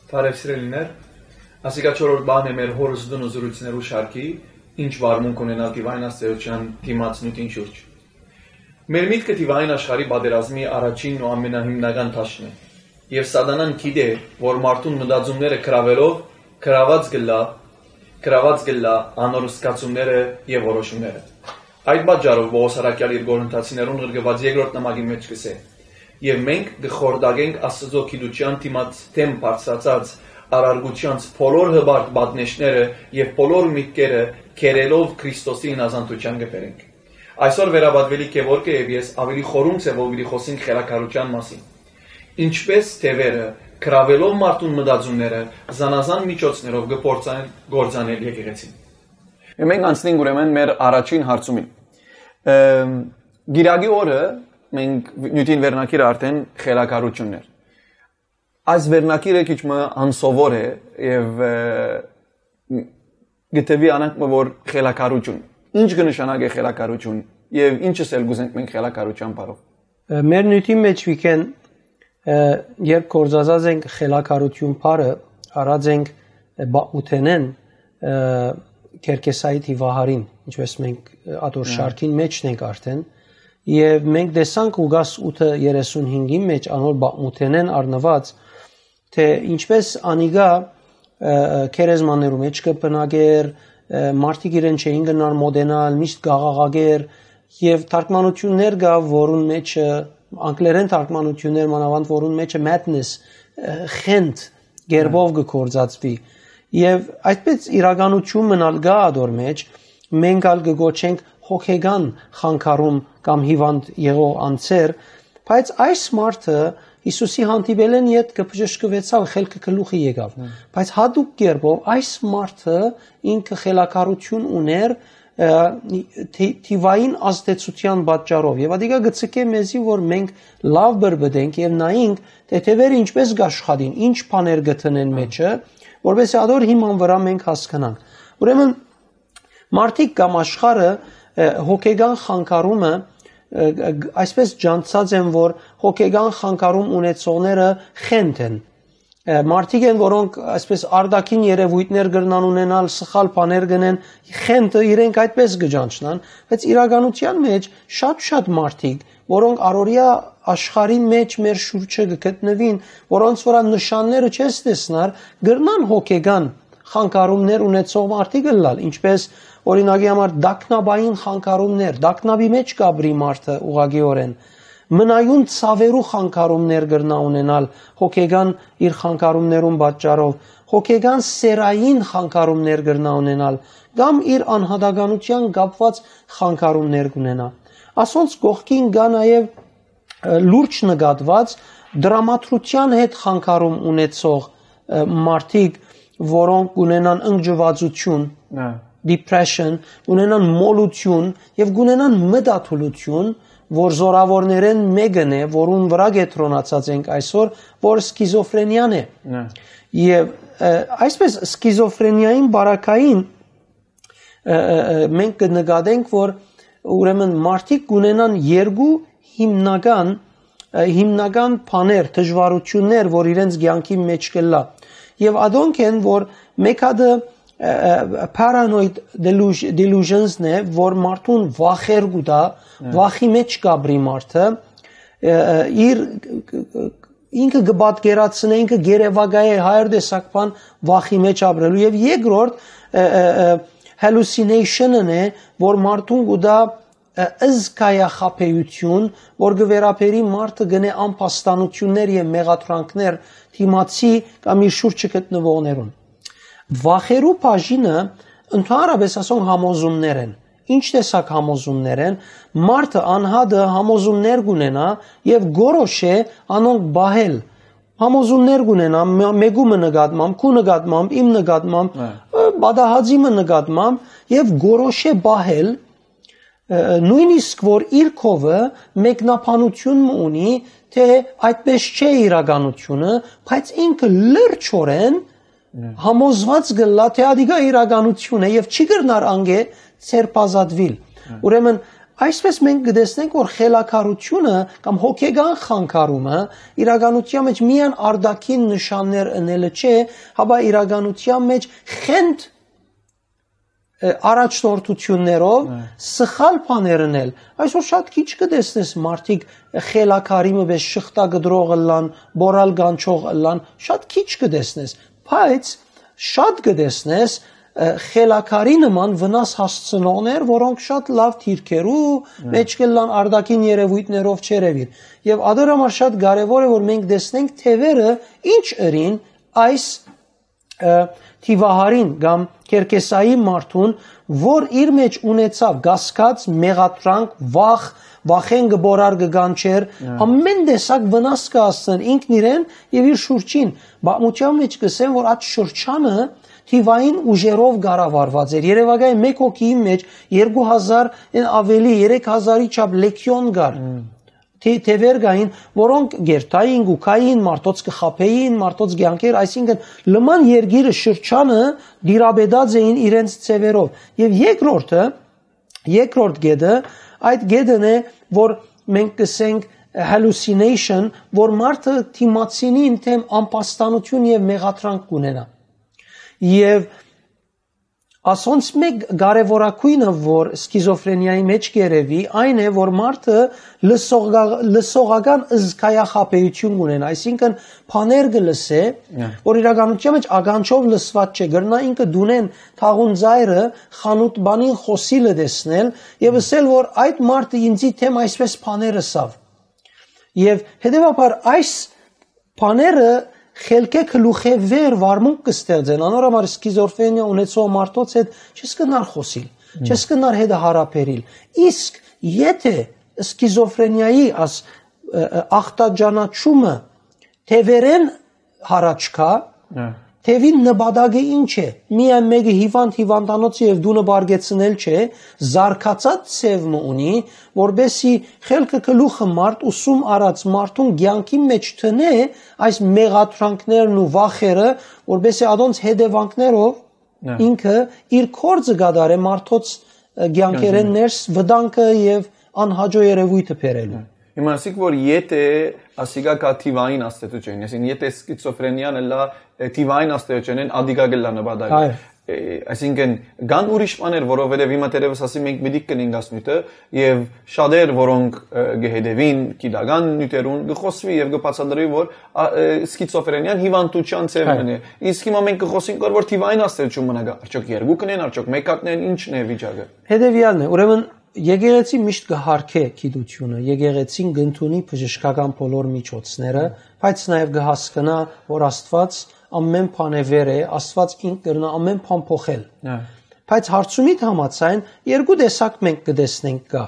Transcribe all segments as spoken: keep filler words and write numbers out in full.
Բարև սիրելիներ, ասիկա չորրորդ բան է մեր հորս տունը զրույցներու շարքի, ինչ վարմունք ունենալ դիվային աստեղծութեան դիմաց նիւթին շուրջ։ Մեր միտքը դիվային աշխարհի պատերազմի առաջինն ու ամենահիմնական դաշտն է, եւ սատանան գիտէ, որ մարդուն մտածումները գրաւելով, գրաւած կ'ըլլայ, գրաւած կ'ըլլայ անոր զգացումները եւ որոշումները։ Այդ պատճառով Պողոս առաքեալ իր Կորինթացիներուն ղրկուած երկրորդ նամակին մէջ կ'ըսէ. «Եւ մենք կը խորտակենք Աստուծոյ գիտութեան դիմաց դէմ բարձրացած առարկութեանց բոլոր հպարտ պատնեշները եւ բոլոր միտքերը կերելով Քրիստոսի ինազանդութեան կը բերենք»։ Այսօր վերապատուելիք Գեորգը եւ ես ավելի խորհում ձեւով պիտի խօսենք խելագարութեան մասին։ Ինչպէս թեւերը, գրաւելով մարդուն մտածումները, զանազան միջոցներով կը փորձեն գործանել եկեղեցին։ Մենք անցնենք ուրեմն մեր առաջին հարցումին։ Ըմ, Կիրակի օրը մենք նիւթին վերնագիրը արդեն խելագարությունն էր։ Այս վերնագիրը քիչ մը անսովոր է եւ, ը, գտեւի անանք մը որ խելագարություն։ Ինչ կը նշանակէ խելագարություն եւ ինչս էլ կ'ուզենք մենք խելագարության բառով։ Ը, մեր նիւթի մէջ, Վիգէն, ը, երբ գործածած ենք խելագարություն բառը, առած ենք, ը, բաղ ութենէն, ը, Քերքեսայի դիվահարին, ինչպես մենք, ը, ատոր Հա։ շարքին մէջն ենք արդեն, եւ մենք տեսանք Ղուկաս ութը երեսուն հինգին մէջ անոր բաղ ութենէն առնուած, թէ ինչպես անիկա, ը, ը, գերեզմաններու մէջ կը բնակէր, ը, մարդիկ իրեն չէին գնար մոտենալ, միշտ կ'աղաղակէր, եւ թարգմանություններ կայ, որուն մէջ, ը, անգլերէն թարգմանություններ մանաւանդ, որուն մէջ ը madness, ը, խենթ կերպով կը գործածուի։ Եւ այսպես իրականություն մնալ կայ ատոր մէջ, մենք ալ կը կոչենք հոգեկան խանգարում կամ հիվանդ եղող անձեր, բայց այս մարդը Յիսուսի հանդիպելէն յետ կը բժշկուեցաւ, խելքը գլուխի եկաւ։ Հմ։ Բայց յատուկ կերպով այս մարդը ինքը խելագարություն ունէր, ը, թի-, թիվային ազդեցութեան պատճառով։ Եւ ատիկա կը ցկէ մեզի, որ մենք լաւ բրբտենք եւ նայենք, թէ թեւերը ինչպես կ'աշխատին, ինչ բաներ կը դնեն Հմ։ մեջը, որպեսզի ատոր հիման վրայ մենք հասկնանք։ Ուրեմն, մարդիկ կամ աշխարհը, ը, հոգեկան խանգարումը, ը, ը, այսպես ջանցած են, որ հոգեկան խանգարում ունեցողները խենթ են։ Ը, մարդիկ են, որոնք այսպես արտաքին երևույթներ կրնան ունենալ, սխալ բաներ կ'ընեն, խենթը իրենք այդպես կը ջանչնան, բայց իրականության մէջ շատ-շատ մարդիկ, որոնք առօրեայ աշխարհին մէջ մեր շուրջը կը գտնուին, որոնց վրայ նշանները չես տեսնար, կրնան հոգեկան խանգարումներ ունեցող մարդիկ ըլլալ, ինչպես, օրինակի համար, տագնապային խանգարումներ, տագնապի մէջ կ'ապրի մարդը ուղղակիօրէն, մնայուն ցաւերու խանգարումներ կրնայ ունենալ հոգեկան իր խանգարումներուն պատճառով, հոգեկան սեռային խանգարումներ կրնայ ունենալ, կամ իր անհատականութեան կապուած խանգարումներ կ'ունենայ։ Ասոնց կողքին կայ նաեւ, ը, լուրջ նկատուած տրամադրութեան հետ խանգարում ունեցող, ը, մարդիկ, որոնք կ'ունենան ընկճուածություն, Հա։ depression, կ'ունենան մոլութիւն եւ կ'ունենան մտադուլութիւն, որ զորաւորներէն մէկն է, որուն վրայ կեդրոնացած ենք այսօր, որ սկիզոֆրենիան է։ Հա։ Եւ, ը, այսպես սկիզոֆրենիային բարակային, ը, ը, ը, մենք կը նկատենք, որ ուրեմն մարդիկ կ'ունենան երկու հիմնական, ը, հիմնական բաներ, դժուարություններ, որ իրենց կեանքի մէջ կ'ըլլայ։ Եւ ադոնք են, որ մէկ հատը, ը, ը, paranoid deluge-, delusions-ն է, որ մարդուն վախեր կու տայ, Հա։ վախի մէջ կ'ապրի մարդը, ը, ը, իր, ինքը կը պատկերացնէ, ինքը գերեվակայէ հայր տեսակ բան վախի մէջ ապրելու։ Եւ երկրորդ, ը, ը, ը, hallucination-ն է, որ մարդուն կու տայ, ը, զգայախաբեութիւն, որ կը վերաբերի մարդը կ'ընէ անփաստանութիւններ եւ մեղադրանքներ դիմացի կամ իր շուրջը գտնուողներուն։ Վախերու բաժինը, ընդհանրապես ասոնք համոզումներ են։ Ինչ տեսակ համոզումներ են, մարդը անհատը համոզումներ կ'ունենայ եւ կորոշէ անոնք պահել։ Համոզումներ կ'ունենայ, մէ-, մէկու մը նկատմամբ, քու նկատմամբ, իմ նկատմամբ, Հա։ ը, պատահածի մը նկատմամբ եւ կորոշէ պահել, ը, նոյնիսկ որ իր քովը մեկնաբանություն մը ունի, թէ այդպես չէ իրականությունը, բայց ինքը լրջորեն Հա։ համոզված կ'ըլլայ, թէ ադիկա իրականություն է եւ չի կրնար անկէ ձերբազատուիլ։ Հա։ Ուրեմն, Այսպէս մենք կը տեսնենք, որ խելագարութիւնը կամ հոգեկան խանգարումը իրականության մեջ միայն արտաքին նշաններ ընելը չէ, հապա իրականության մեջ խենթ, ը, առաջնորդություններով Հա։ սխալ բաներ ընել։ Այսօր շատ քիչ կը տեսնես մարդիկ խելագարի մը պէս շղթա կտրող ըլլան, բորալ կանչող ըլլան, շատ քիչ կը տեսնես, բայց շատ կը տեսնես, ը, խելագարի նման վնաս հասցնողներ, որոնք շատ լաւ դիրքերու Հա։ մեջ կ'ըլլան, արտաքին երեւոյթներով չերեւիր։ Եւ ադոր համար շատ կարեւոր է, որ մենք տեսնենք թեւերը ինչ ըրին այս, ը, թիվահարին կամ Քերքեսայի մարդուն, որ իր մեջ ունեցաւ կասկած, մեղադրանք, վախ, վախէն կը բորար, կը կանչեր, Հա։ ամեն տեսակ վնաս կը հասցնեն ինքն իրեն եւ իր շուրջին։ Պատմության մեջ կ'ըսեն, որ այդ շրջանը թիվային ուժերով կառավարուած էր։ Երեւակայ մէկ հոգիին մեջ երկու հազար են ավելի, երեք հազարի չափ լեգիոն կար։ Հմ։ Թի-, թեւեր կային, որոնք գերտային, գուքային, մարդոց կը խաբեին, մարդոց կյանքեր, այսինքն լման երկիրը շրջանը դիրապետած էին իրենց ձևերով։ Եւ երկրորդը, երկրորդ գետը, այդ գետն է, որ մենք կսենք hallucination, որ մարդը դիմացինին դեմ ամբաստանություն եւ մեղադրանք կունենա։ Եւ ասոնց մէկ կարեւորագույնը, որ սկիզոֆրենիայի մեջ կ'երեւի, այն է, որ մարդը լսողգա-, լսողական զգայախաբեութիւն կունենա, այսինքն բաներ կը լսէ, Հա։ որ իրականության մեջ ականջով լսուած չէ, կրնայ ինքը դունեն թաղուն ծայրը, խանութ բանին խօսիլը տեսնել եւ ըսել, որ այդ մարդը ինձի դեմ այսպէս բաներ ըսաւ։ Եւ հետեւաբար այս բաները խելքէ գլուխէ վեր վարմունք կը ստեղծեն, անոր համար սկիզոֆրենիա ունեցող մարդոց հետ չես կնար խօսիլ, Հմ։ չես կնար հետը հարաբերիլ։ Իսկ եթե սկիզոֆրենիայի աս, ը, ը, ախտաճանաչումը թեւերեն յառաջ գայ, Հա։ թեւին նպատակը ինչ է։ Միայն մէկը հիվանդ հիվանդանոցը եւ դունը պարկեցնել չէ, զարգացած ձեւ մը ունի, որպեսզի խելքը գլուխը մարդ ուսում առած մարդուն կեանքի մեջ տնէ այս մեղադրանքներն ու վախերը, որպեսզի ադոնց հետեւանքներով Հա։ ինքը իր կորձը կատարէ մարդոց, ը, կեանքերեն Կեանքերեն։ ներս վտանգը եւ անհաճո երեւոյթը բերելու։ Հիմա ասիք, որ եթե ասիկա կա թիվային աստեցութիւն, այսինքն եթե սկիզոֆրենիան ըլլա, ը, թիվային աստեցութիւնեն ադիկա կ'ըլլա նպատակը։ Այո։ Ը, այսինքն կան ուրիշ բաներ, որովհետեւ հիմա թերեւս ասի մենք պիտի կնենք աս նիւթը, եւ շատեր, որոնք, ը, կը հետեւին գիտական նիւթերուն, կը խօսուի եւ կը բացատրուի, որ, ա, ը, սկիզոֆրենիան հիվանդութեան ձեւ Այո։ մն է։ Իսկ հիմա մենք կը խօսենք, որ, որ թիվային աստեցութիւն մնա գայ։ Արդյոք երկուքն են, արդյոք մէկատն են, ի՞նչն է վիճակը։ Հետեւեալն է, ուրեմն եկեղեցին միշտ կը յարգէ գիտութիւնը, եկեղեցին կ'ընդունի բժշկական բոլոր միջոցները, բայց նաեւ կը հասկնայ, որ Աստուած ամեն բան է վեր է, Աստուած ինք կրնայ ամեն բան փոխել։ Հա։ Բայց հարցումիդ համաձայն երկու տեսակ մենք կը տեսնենք կայ։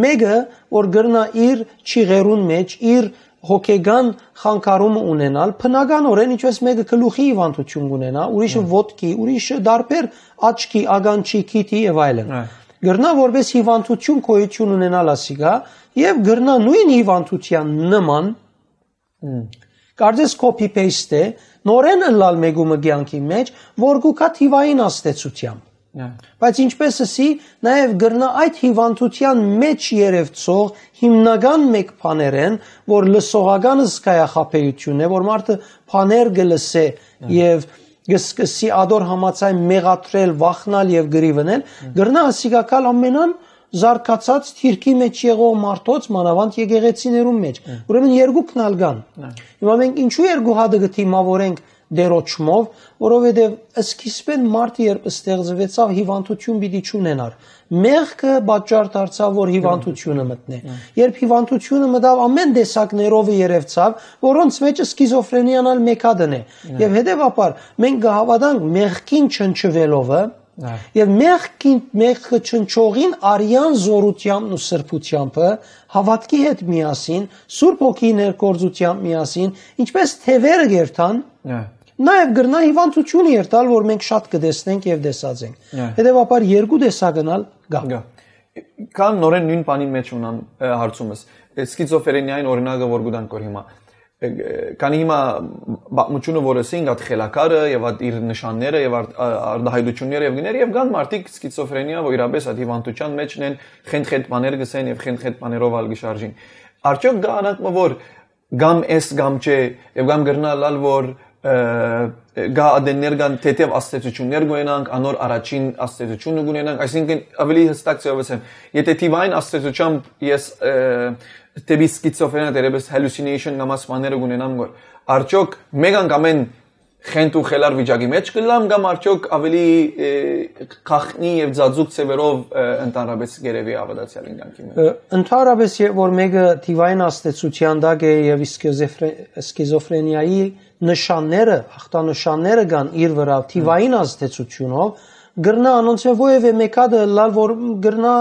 Մէկը, որ կրնայ իր չիղերուն մեջ, իր հոգեկան խանգարումը ունենալ, բնականորեն ինչպես մէկը գլուխի հիվանդութիւն կունենայ, ուրիշը Հա։ ոտքի, ուրիշը դարբեր աչքի, ականջի, քիթի եւ այլն։ Հա։ Կրնայ որպես հիվանդութիւն գոյութիւն ունենալ ասիկա եւ կրնայ նոյն հիվանդութեան նման Հմ։ կարծես copy paste է, նորեն ըլլալ մէկու մը կեանքի մեջ, որ կու գայ թիվային աստեցութեամբ։ Հա։ Բայց ինչպես ըսի, նաեւ կրնայ այդ հիվանդութեան մեջ երեւցող հիմնական մէկ բաներէն, որ լսողական զգայախաբեութիւնն է, որ մարդը բաներ կը լսէ Հա։ եւ կը սկսի ադոր համաձայն մեղադրել, վախնալ եւ կռիվնել, Հա։ կրնայ ասիկա գալ ամենան զարգացած թիրքի մեջ եղող մարդոց, մանաւանդ եկեղեցիներուն մեջ։ Հա։ Ուրեմն երկուքն ալ կան։ Հա։ Հիմա մենք ինչու երկու հատը կը դիմավորենք դերոճմով, որովհետեւ սկիզբեն մարդը երբ ստեղծուեցաւ, հիվանդութիւն պիտի չունենար։ Մեղքը պատճառ դարձաւ, որ հիվանդությունը մտնէ։ Հա։ Երբ հիվանդությունը մտաւ, ամեն տեսակներով երևցաւ, որոնց մեջ սկիզոֆրենիան ալ մէկ հատն է։ Հա։ Եվ հետեւաբար մենք կը հաւատանք մեղքին չնչուելովը, Հա։ եւ մեղքին, մեղքը չնչողին արեան զօրութեամբն ու սրբութեամբը, հաւատքի հետ միասին, Սուրբ Հոգիի ներգործութեամբ միասին, ինչպես թեւերը կերթան, Հա։ նաեւ կրնայ հիվանդութիւնը երթալ, որ մենք շատ կը տեսնենք եւ տեսած ենք։ Հա։ Հետեւաբար երկու տեսակն ալ կայ։ Կայ։ Կան նորեն նոյն բանին մեջ ունան, ը, հարցումս։ Ը, սկիզոֆրենիային օրինակը որ կու տանք որ հիմա։ Քանի հիմա պատմությունը, որ ըսինք, այդ խելագարը եւ այդ իր նշանները եւ արդ-, ա-, արտահայտությունները եւ գներ, եւ կան մարդիկ սկիզոֆրենիա, որ իրապես այդ հիվանդութեան մեջ են, խենթ-խենթ բաներ կսեն եւ խենթ-խենթ բաներով ալ կշարժին։ Արդյոք կա անակ մը, որ կամ էս կամ չէ, եւ կամ կրնա ըլլալ, որ, ը, կա ադեններ կան թեթեւ աստեցություններ կունենանք, անոր առաջին աստեցությունը կունենանք, այսինքն ավելի հստակ ձեւով ասեմ, եթե թիվային աստեցությամբ ես, ը, դեպի սկիզոֆրենիա, դերևս hallucination կամ այս բաները կունենամ, որ արդյոք մեկ անգամէն խենթ ու խելար վիճակի մեջ կլամ կամ արդյոք ավելի, ը, գաղտնի եւ ծածուկ ձևերով, ը, ընդհանրապես կերեւի ա վատացեալ ինքնանքի մեջ։ Ը, ընդհանրապես, երբ որ մեկը թիվային աստեցության տակ է եւ սկիզոֆրե-, սկիզոֆրենիայի նշանները, ախտանշանները կան իր վրա թիվային աստեցությունով, կրնա անոնցմէ որեւէ մէկ հատը ըլլալ, որ կրնա,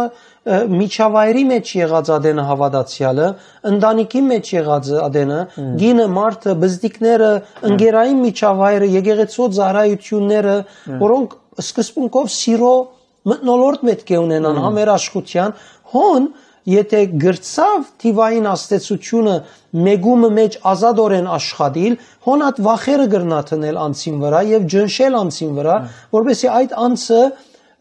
ը, միջավայրի մեջ եղած ադենը հաւատացեալը, ընտանիքի մեջ եղած ադենը, Հմ։ գինը, մարդը, բզդիկները, Հմ։ ընկերային միջավայրը, եկեղեցու ծառայությունները, Հմ։ որոնք սկզբունքով սիրո մթնոլորտ պէտք է ունենան Հմ։ համերաշխութեան, հոն, եթե գրցաւ թիվային աստեցությունը մեկումը մեջ ազատօրեն աշխատիլ, հոն այդ վախերը կրնա դնել անձին վրա եւ ջնշել անձին վրա, Հմ։ որպեսզի այդ անձը,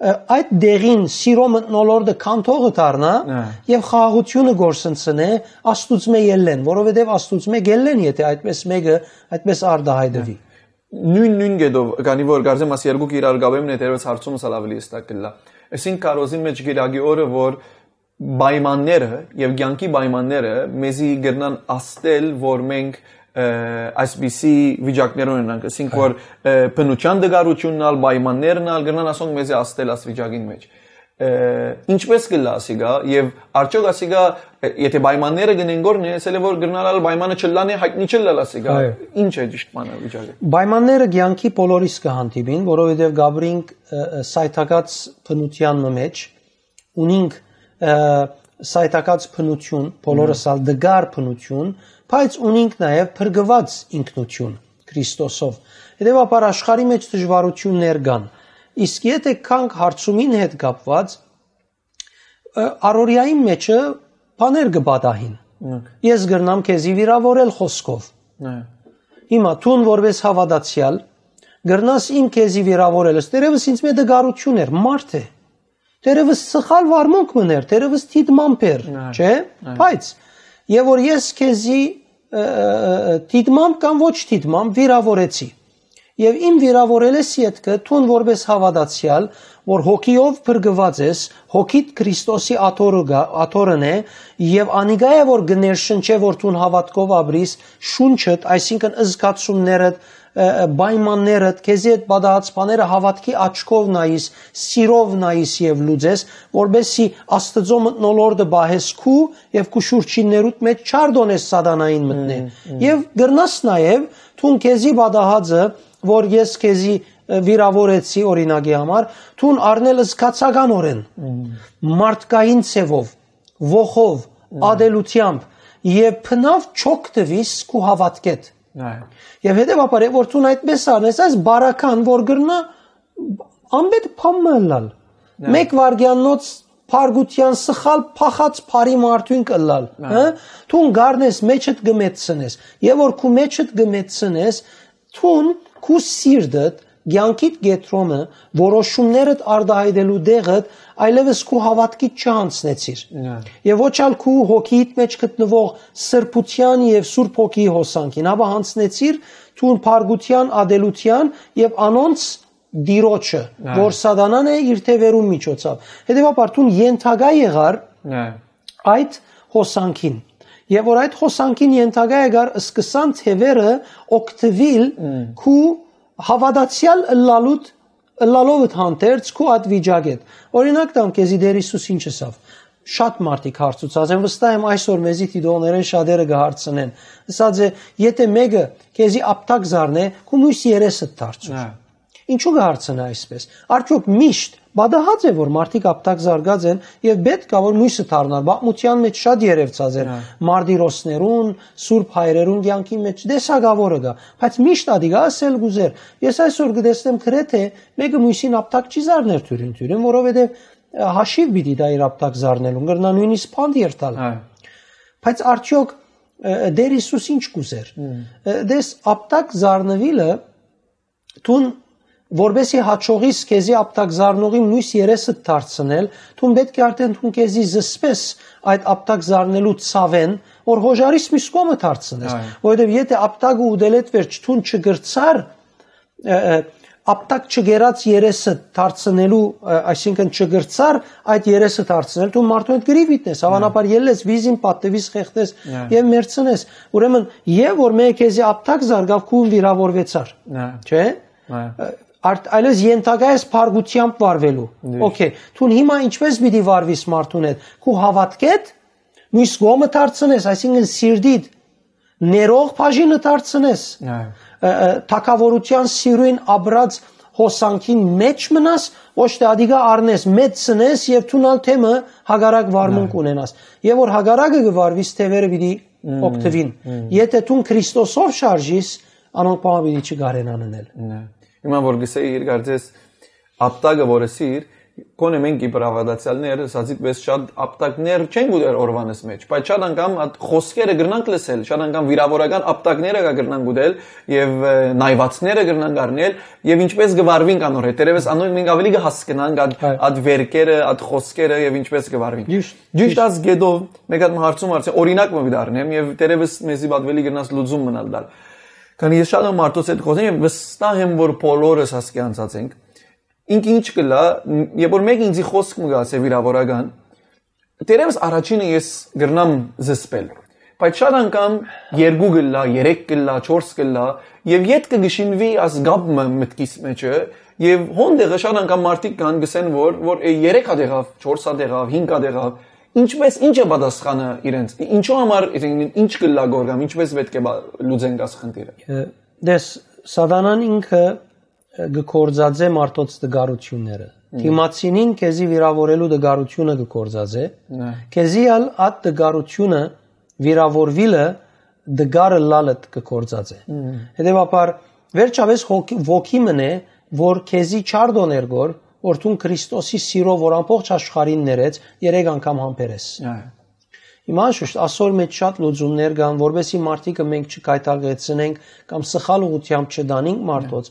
ը, այդ դեղին սիրո մթնոլորտը քանդողը դառնա Հա։ եւ խաղաղությունը գործընծնէ Աստուծմէ ելլեն, որովհետեւ Աստուծմէ գելլեն, եթե այդպես մեկը այդպես արտահայտվի։ Նույն, նույն կետով, քանի որ կարծեմ, աս երկուք իրար կապեմ, դերևս հարցումս ալ ավելի հստակ կլա։ Այսինքն, քարոզին մեջ գիրագի օրը, որ պայմանները եւ կյանքի պայմանները մեզի կրնան աստել, որ մենք, ը, այսպիսի վիճակներ ունենանք, այսինքն, Այո։ որ, ը, բնության դգարությունն ալ, պայմաններն ալ կրնան ասոնք մեզի աստել աս վիճակին մեջ։ Ը, ինչպես կլա ասիկա, եւ արդյոք ասիկա, ը, եթե պայմանները կնեն գորնի, ասել է, որ կրնալ ալ պայմանը չլան է, հայտնի չլալ ասիկա, Այո։ ինչ է ճիշտ բանը վիճակը։ Պայմանները կյանքի բոլորիս կը հանդիպին, որովհետեւ գաբրինք, ը, ը, սայթակած բնության մը մեջ, ունինք, ը, սայթակած բնություն, բոլորս Մհմ։ ալ դգար բնություն, բայց ունինք նաեւ փրկված ինքնություն Քրիստոսով։ Հետեւաբար աշխարհի մեջ դժվարություններ կան, իսկ եթե գանք հարցումին հետ կապված, ը, առօրեային մեջը բաներ կը պատահին։ Մհմ։ Ես կրնամ քեզի վիրավորել խոսքով։ Այո։ Հիմա դուն որպես հաւատացեալ կրնաս իմ քեզի վիրավորելս, դերևս ինձ մէ դգարություն էր, մարդ է։ Դերևս սխալ վարմունք մըն էր, դերևս դիտմամբ էր, Այո, չէ՞։ այո։ Բայց, եւ որ ես քեզի, ը, ը, ը, դիտմամբ կամ ոչ դիտմամբ վիրավորեցի։ Եւ իմ վիրավորելես ետքը, դուն որպես հաւատացեալ, որ հոգիով փրկված ես, հոգիդ Քրիստոսի աթոռը գա-, աթոռն է, եւ անիկա է, որ կներշնչէ, որ դուն հաւատքով ապրիս, շունչդ, այսինքն զգացումներդ, ը, ը, պայմաններդ, քեզի հետ պատահած բաները հաւատքի աչքով նայիս, սիրով նայիս եւ լուծես, որպեսզի Աստծո մթնոլորտը պահես քու եւ քու շուրջիններուդ մեջ չարդոնես սատանային մտնե։ Մմ, մմ։ Եւ կրնաս նաեւ, դուն քեզի պատահածը, որ ես քեզի, ը, վիրավորեցի, օրինակի համար, դուն առնել զգացականօրեն, Մմ։ մարդկային ձևով, ոխով, Մմ։ ատելությամբ, եւ բնաւ չօգտվիս քու հաւատքեդ։ Այո։ Եվ հետեւաբար, որ դուն այդպես առնես, այս բարական, որ կրնա անպետ բան մը ըլլալ։ Այո։ Մեկ վարգեաննոց փարգության սխալ փախած բարի մարդուն կը ըլլալ, Այո։ հը? Դուն գարնես, մեջդ կը մեծցնես, եւ որ քու մեջդ կը մեծցնես, դուն քու սիրտդ, կյանքիդ կեդրոնը, որոշումներդ արտահայտելու տեղդ, այլևս քու հաւատքիդ չհանձնեցիր։ Այո։ Եւ ոչ ալ քու հոգիիդ մեջ գտնվող սրբության եւ Սուրբ Հոգիի հոսանքին, ապա յանձնեցիր դուն փարգության, ատելության եւ անոնց տիրոջը, Այո։ որ սատանան է իր թեւերուն միջոցով։ Հետեւաբար դուն ենթակայ եղար Այո։ այդ հոսանքին։ Եվ որ այդ հոսանքին ենթակայ եղար, սկսան թևերը օգտվել Մմ։ քու հաւատացեալ ըլլալուդ, ըլլալովդ հանդերձ քու այդ վիճակեդ։ Օրինակ տամ քեզի Տեր Հիսուս ինչ ըսավ։ Շատ մարդիկ հարցուցած են, վստահ եմ այսօր մեզի դիտողներէն շատերը կը հարցնեն։ Ըսած է, եթե մեկը քեզի ապտակ զարնէ, քու մյուս երեսդ դարձուր։ Հա։ Ինչու կը հարցնէ այսպես։ Արդյոք միշտ պատահած է, որ մարդիկ ապտակ զարգած են եւ պետք ա, որ մյուսը դառնար։ Պատմության մեջ շատ երևցած էր Հա։ մարտիրոսներուն, սուրբ հայրերուն կյանքի մեջ տեսակավորը կա, բայց միշտ ադիգա ասել կուզեր։ Ես այսօր կտեսնեմ գրեթե մեկը մյուսին ապտակ չի զարներ թյուրին-թյուրին, որովհետեւ, ը, հաշիվ պիտի տայ իր ապտակ զարնելուն, կրնայ նույնիսկ բանտ երթալ։ Հա։ Բայց արդյոք Ը, Տեր Հիսուս ինչ կ'ուզեր։ Ը, Դες, ապտակ զարնուիլը, դուն որպեսի հաջողիս քեզի ապտակ զարնողի մյուս երեսը դարձնել, դուն պէտք է արդեն դուն քեզի զսպես այդ ապտակ զարնելու ցաւէն, որ հոժարիս մյուս կողմը դարձնես։ Այո։ Որովհետեւ եթե ապտակը ուտելէդ վերջ դուն չգրցար, ը, ը, ապտակ չգերած երեսը դարձնելու, ը, այսինքն չգրցար այդ երեսը դարձնել, դու մարդու հետ գրիվ իտնես, հավանաբար ելլես, վիզին պատտվիս, խեղդես Այո։ Եւ մերցնես։ Ուրեմն, եւ որ մեկը քեզի ապտակ զարգավ, քուն վիրավորվեցար։ Այո։ Չէ՞։ Այո։ Ը, արդ-, այլևս ենթակայ ես փառկությամբ վարվելու։ Միշտ։ Okay, դուն հիմա ինչպես պիտի վարվիս մարդուն հետ, քու հավատքեդ, մյուս կողմը դարձնես, այսինքն սիրտիդ ներող բաժինը դարձնես, Այո։ ը, ը, թագավորութեան սիրոյն ապրած հոսանքին մեջ մնաս, ոչ թե ադիգա առնես, մեծցնես եւ դուն ալ թեմը հակառակ վարմունք Այո։ Ունենաս։ Եւ որ հակառակը կը վարվիս, թևերը պիտի Մմ, օգտվին։ Մմ։ Եթե դուն Քրիստոսով շարժիս, անոնք բան պիտի չկարենան ընել։ Նայ։ Հիմա որ գսեի իր կարծես ապտակը որ ըսիր, կոնե մենք իբր ավադացյալներ, սածիտ պես շատ ապտակներ չենք ուտեր օրվանս մեջ, բայց շատ անգամ այդ խոսքերը կրնանք լսել, շատ անգամ վիրավորական ապտակները կա կրնանք ուտել եւ, ը, նայվածները կրնանք առնել եւ ինչպես կվարվինք անոր հետ։ Դերևս անոնք մենք ավելի կհասկնանք այդ, Այո։ Այդ վերքերը, այդ խոսքերը եւ ինչպես կվարվինք։ Ճիշտ, Ճիշտ ճիշտ։ Այս գետով մեկ հատ հարցում արդեն օրինակ մը դառնեմ եւ դերևս մեզի պատվելի կրնաս լուծում մնալ տալ։ Քանի ես շատ եմ մարդոց հետ խոսեմ եւ վստահ եմ, որ բոլորս հասկի անցած ենք։ Ինքը ինչ կլա, երբ որ մեկը ինձի խոսք մը գացե վիրավորական, դերևս առաջինը ես կրնամ զսպել, բայց շատ անգամ երկու կլա, երեք կլա, չորս կլա, եւ յետքը կշինվի աս գապ մը մտքիս մեջը, եւ հոն դեղը շատ անգամ մարդիկ կան, գսեն, որ, որ, է, երեք հատ եղավ, չորս հատ եղավ, հինգ հատ եղավ, ինչպես, ինչ է պատասխանը իրենց, ինչու համար, ինչ կլա գորգամ, ինչպես պետք է բա-, լուծենք աս խնդիրը։ Ը, դες, սատանան ինքը, ը, կը գործածե մարդոց տկարությունները։ Մմ։ Դիմացինին քեզի վիրավորելու տկարությունը կը գործածե, Նայ։ Քեզի ալ այդ տկարությունը վիրավորվիլը տկարը լալըտ կը գործածե։ Մմ։ Հետևաբար, վերջապես հոգ-, ոգի մնե, որ քեզի չարդոներ գոր, որ դուն Քրիստոսի սիրով, որ ամբողջ աշխարհին ներեց, երեք անգամ համբերես։ Այո։ Հիմա շուշտ, ասոր մեջ շատ լուծումներ կան, որպեսզի մարդիկը մենք չկայտակեցնենք կամ սխալ ուղղությամբ չդանենք մարդոց։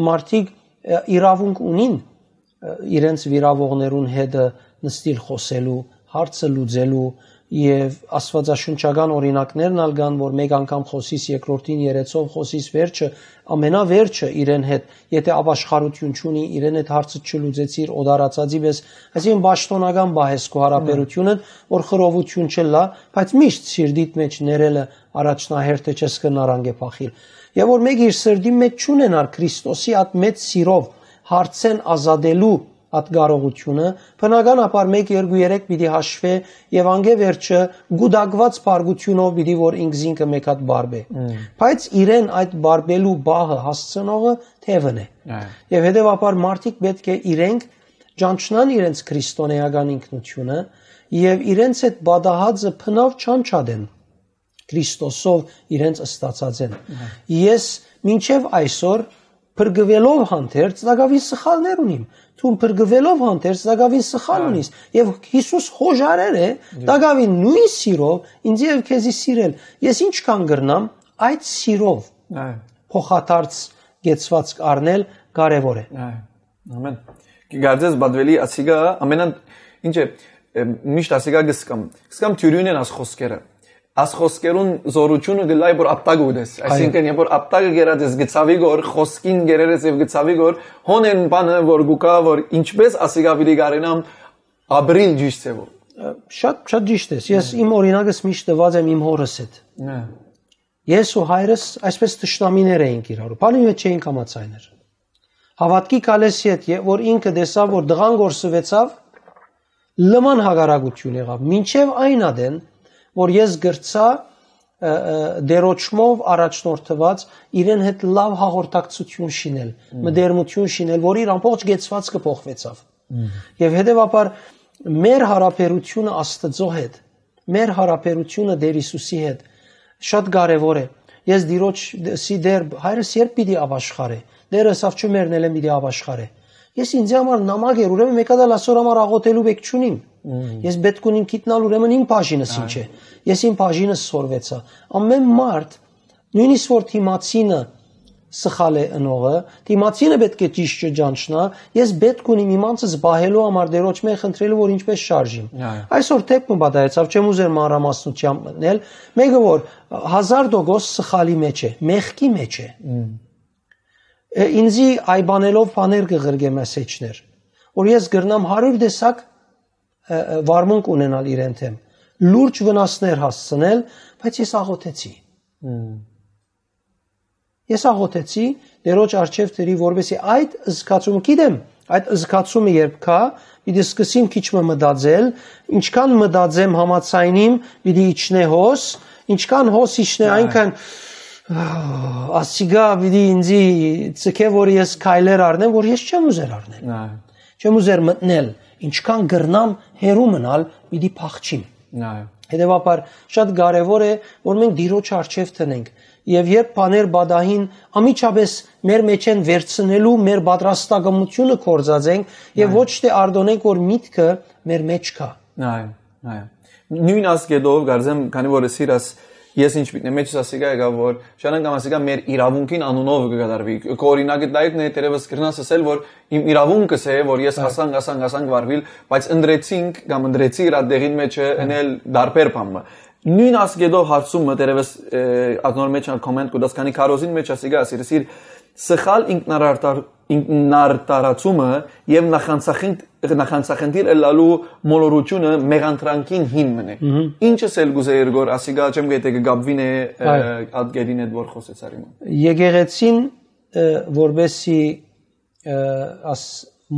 Մարդիկ, ը, իրավունք ունին, ը, իրենց վիրավորողներուն հետը նստիլ խոսելու, հարցը լուծելու, եւ աստվածաշունչական օրինակներն ալ կան, որ մեկ անգամ խոսիս, երկրորդին երեցով խոսիս, վերջը, ամենավերջը իրեն հետ, եթե ապաշխարություն չունի, իրեն հետ հարցը չլուծեցիր, օտարացածի պես, այսինքն պաշտոնական պահես քո հարաբերությունը, որ խռովություն չլա, բայց միշտ սիրտիդ մեջ ներելը առաջնահերթը չես կրնար անկէ փախիլ։ Եւ որ մեկը իր սրտի մեջ չունենար Քրիստոսի այդ մեծ սիրով հարցեն ազատելու այդ կարողությունը, բնականաբար մեկ, երկու, երեք պիտի հաշվէ եւ անկէ վերջը գուտակված փառքութիւնով պիտի որ ինքզինքը մեկ հատ բարբէ։ Մմ։ Բայց իրեն այդ բարբելու պահը հասցնողը թևն է։ Այո։ Եւ հետեւաբար մարդիկ պէտք է իրենք ճանչնան իրենց քրիստոնեական ինքնությունը եւ իրենց այդ պատահածը բնավ չանչադեն Քրիստոսով իրենց ստացած են։ Այո։ Ես մինչեւ այսօր փրկուելով հանդերձ տակավին սխալներ ունիմ։ Դու փրկուելով հանդերձ տակավին սխալ Այո։ Ունիս։ Եվ Հիսուս հոժարեր է, Այո։ Տակավին նույն սիրով ինձ եւ քեզի սիրել։ Ես ինչքան կրնամ այդ սիրով Այո։ Փոխադարձ կեցվածք առնել կարեւոր է։ Այո։ Ամեն։ Կգարձես բադվելի ասիգա, ամենան, ինչ է, ը, միշտ ասիգա գսկամ։ Գսկամ թյուրյուն են աս խոսքերը։ Աս խոսքերուն զորությունը գլայ որ ապտակ ուտես։ Այո։ Այսինքն, երբ որ ապտակը գերած ես գցավի գոր, խոսքին գերեր ես եւ գցավի գոր, հոն են բանը որ գուկա, որ ինչպես ասիգա պիտի գարենամ ապրիլ ճիշտ ձևով։ Ը, շատ, շատ ճիշտ ես։ Ես իմ օրինակս միշտ տված եմ իմ հորս հետ։ Հա։ Ես ու հայրս այսպես թշնամիներ էինք իրարու։ Բանի մեջ չէինք համաձայներ։ Հավատքի գալես յետ, ե-, որ ինքը տեսաւ, որ տղան գործուեցաւ, լման հակառակություն եղավ։ Մինչև այն ադեն, որ ես գրցա, ը, ը, դերոճմով առաջնորդված իրեն հետ լավ հաղորդակցություն շինել, Մմ։ Մտերմություն շինել, որ իր ամբողջ կեցվածքը փոխվեցավ։ Մմ։ Եվ հետևաբար մեր հարաբերությունը Աստծո հետ, մեր հարաբերությունը Տեր Հիսուսի հետ շատ կարևոր է։ Ես Տիրոջ ս-, սի դեր, հայրս երբ պիտի ապաշխարե։ Դերը ասավ, «Չմեռնելէն պիտի ապաշխարե»։ Ես ինձի համար նամակ էր, ուրեմն մէկ հատ ալ ասոր համար աղոթելու պէք չունիմ։ Ես պէտք ունիմ գիտնալ, ուրեմն իմ բաժինս ինչ է։ Ես իմ բաժինս սորվեցայ։ Ամեն մարդ, նոյնիսկ որ դիմացինը սխալ է ընողը, դիմացինը պէտք է ճիշդը ճանչնայ, ես պէտք ունիմ իմ անձս պահելու համար Տէրոջմէ խնդրելու, որ ինչպէս շարժիմ։ Այո։ Այսօր դէպ մը պատահեցաւ, չեմ ուզեր մանրամասնութեամբ մտնել, մէկը որ հազար տոկոս սխալի մեջ է, մեղքի մեջ է։ Մմ։ Է, ինձի այ բանելով բաներ կը ղրկե մեսեջներ, որ ես կրնամ հարիւր տեսակ, ը, ը, վարմունք ունենալ իրեն դէմ, լուրջ վնասներ հասցնել, բայց ես աղոթեցի։ Մմ։ Ես աղոթեցի, Տէրոջ առջեւ դրի, որպեսզի այդ զգացումը, գիտեմ, այդ զգացումը երբ գայ, պիտի սկսեմ քիչ մը մտածել, ինչքան մտածեմ համաձայնիմ, պիտի իջնէ հոս, ինչքան հոս իջնէ, Այո։ այնքան, ահ, ասիգա պիտի ինձի ցկէ, որ ես քայլեր առնեմ, որ ես չեմ ուզեր առնել։ Այո։ Չեմ ուզեր մտնել, ինչքան կրնամ հեռու մնալ, պիտի փախչիմ։ Այո։ Հետեւաբար, շատ կարեւոր է, որ մենք Տիրոջ առջեւ դնենք։ Եւ երբ բաներ պատահին, անմիջապէս մեր մեջ են վերցնելու մեր պատրաստակամությունը գործած ենք եւ Այո։ ոչ թե արտոնենք, որ միտքը մեր մեջ կայ։ Այո, այո։ Նոյն ասկետով, կարծեմ, քանի որ սիրաս, ես ինչ միտքն է, մեջս ասիկա եկա, որ Շանան կամ ասիկա մեր իրավունքին անունով կը կատարուի։ Քո օրինակը դա եկն է, թերևս կրնաս ասել, որ իմ իրավունքս է, որ ես Այո։ ասանք, ասանք, ասանք վարվիլ, բայց ընտրեցինք կամ ընտրեցի իր դեղին մեջը Այո։ ընել դարբեր բան մը։ Նոյն ասկետով հարցումը, թերևս, ը, ադնոր մեջ ալ կոմենտ կու տաս, քանի քարոզին մեջ ասիկա ասիր, սիր սխալ ինքնարարդար-, ինքնարդարացումը եւ նախանցախինդ-, նախանցախնդիր ըլլալու մոլորությունը մեղանդրանքին հիմն է։ Մհմ։ Ինչս էլ կուզեի ըրգոր, ասիկա չեմ գետե կը գաբվին է, ը, Այո։ ատկերին հետ որ խոսեցար իմ։ Եկեղեցին, ը, որպեսի, ը, աս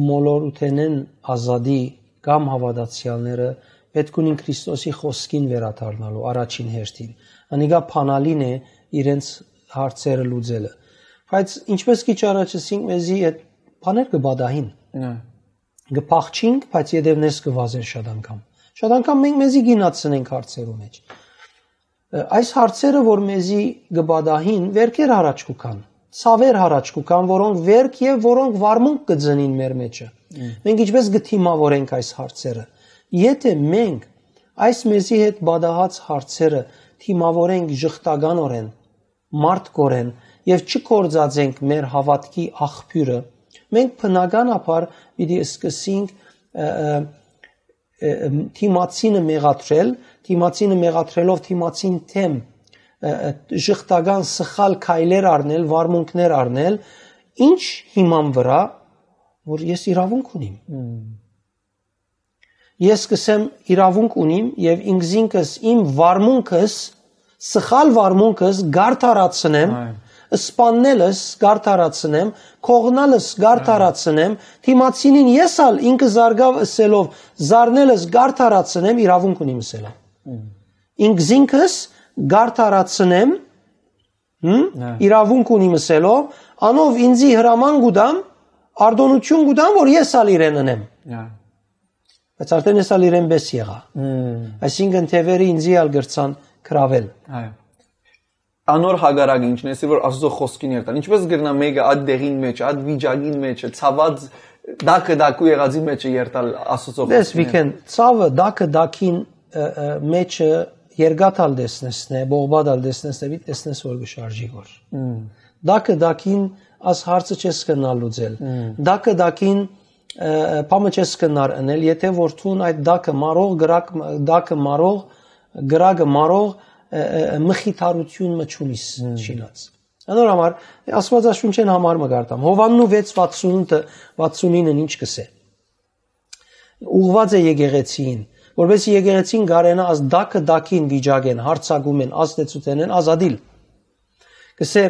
մոլորութենեն ազատի կամ հաւատացեալները պէտք ունին Քրիստոսի խօսքին վերադառնալու առաջին հերթին։ Անիկա փանալին է իրենց հարցերը լուծելը։ Բայց ինչպես քիչ առաջ ասինք, մեզի այդ բաներ կը պատահին։ Նա։ Կը փախչինք, բայց ետևներս կը վազեն շատ անգամ։ Շատ անգամ մենք մեզի գինացնենք հարցերու մեջ։ Ը, այս հարցերը, որ մեզի կը պատահին, վերքեր յառաջ կու գան, ցաւեր յառաջ կու գան, որոնք վերք եւ որոնք վարմունք կը ծնին մեր մեջը։ Մմ։ Մենք ինչպես կը դիմավորենք այս հարցերը։ Եթէ մենք այս մեզի հետ պատահած հարցերը դիմավորենք ժխտականորեն, մարդկորեն եւ չկործածենք մեր հաւատքի աղբիւրը, մենք բնականաբար պիտի սկսենք, ը, ը, ը, դիմացինը մեղադրել, դիմացինը մեղադրելով դիմացին թեմ, ը, ը, ժխտական սխալ քայլեր առնել, վարմունքներ առնել, ինչ հիման վրայ, որ ես իրավունք ունիմ։ Մմ։ Ես կսեմ իրավունք ունիմ եւ ինքզինքս իմ վարմունքս, սխալ վարմունքս գարդարացնեմ, Այո։ սպաննելս գարդարացնեմ, կողնալս գարդարացնեմ, դիմացինին ես ալ ինքը զարգավ ըսելով զարնելս գարդարացնեմ, իրավունք ունիմ ըսելով։ Մմ։ Ինքզինքս գարդարացնեմ, հմ? Այո։ Իրավունք ունիմ ըսելով, անով ինձի հրաման կու տամ, արտոնություն կու տամ, որ ես ալ իրեն ընեմ։ Այո։ Բայց արդեն ես ալ իրեն պէս եղայ։ Մմ։ Այսինքն թեւերը ինձի ալ կրցան գրավել։ Այո։ Անոր հակառակը ինչն է, որ Աստուծոյ խօսքին երթալ։ Ինչպես կրնայ մէկը այդ դեղին մեջ, այդ վիճակին մեջ, ցաված, դակը դակու եղածի մեջ երթալ Աստուծոյ Դες խօսքին վիքեն, ցավը դակը դակին, ը, ը, մեջը երկաթ ալ տեսնես նե, բողբատ ալ տեսնես նե, պիտի տեսնես, որ կը շարժի գոր։ Մմ։ Դակը դակին աս հարցը չես կրնալ լուծել։ Մմ։ Դակը դակին, ը, ը, բամը չես կրնար ընել, եթե որ դուն այդ դակը մարող, գրակ, դակը մարող, գրակը մարող, ը, ը, ը, մխիթարություն մը չունիս Մմ։ շինած։ Անոր համար, Աստուածաշունչեն համար մը կարտամ։ Հովաննու վեց վաթսունութը, վաթսունինը ինչ կսե։ Ուղղված է եկեղեցին, որպեսզի եկեղեցին կարենա աս դակը դակին վիճակեն, հարցակումեն, ազդեցութենեն ազատիլ։ Կսե,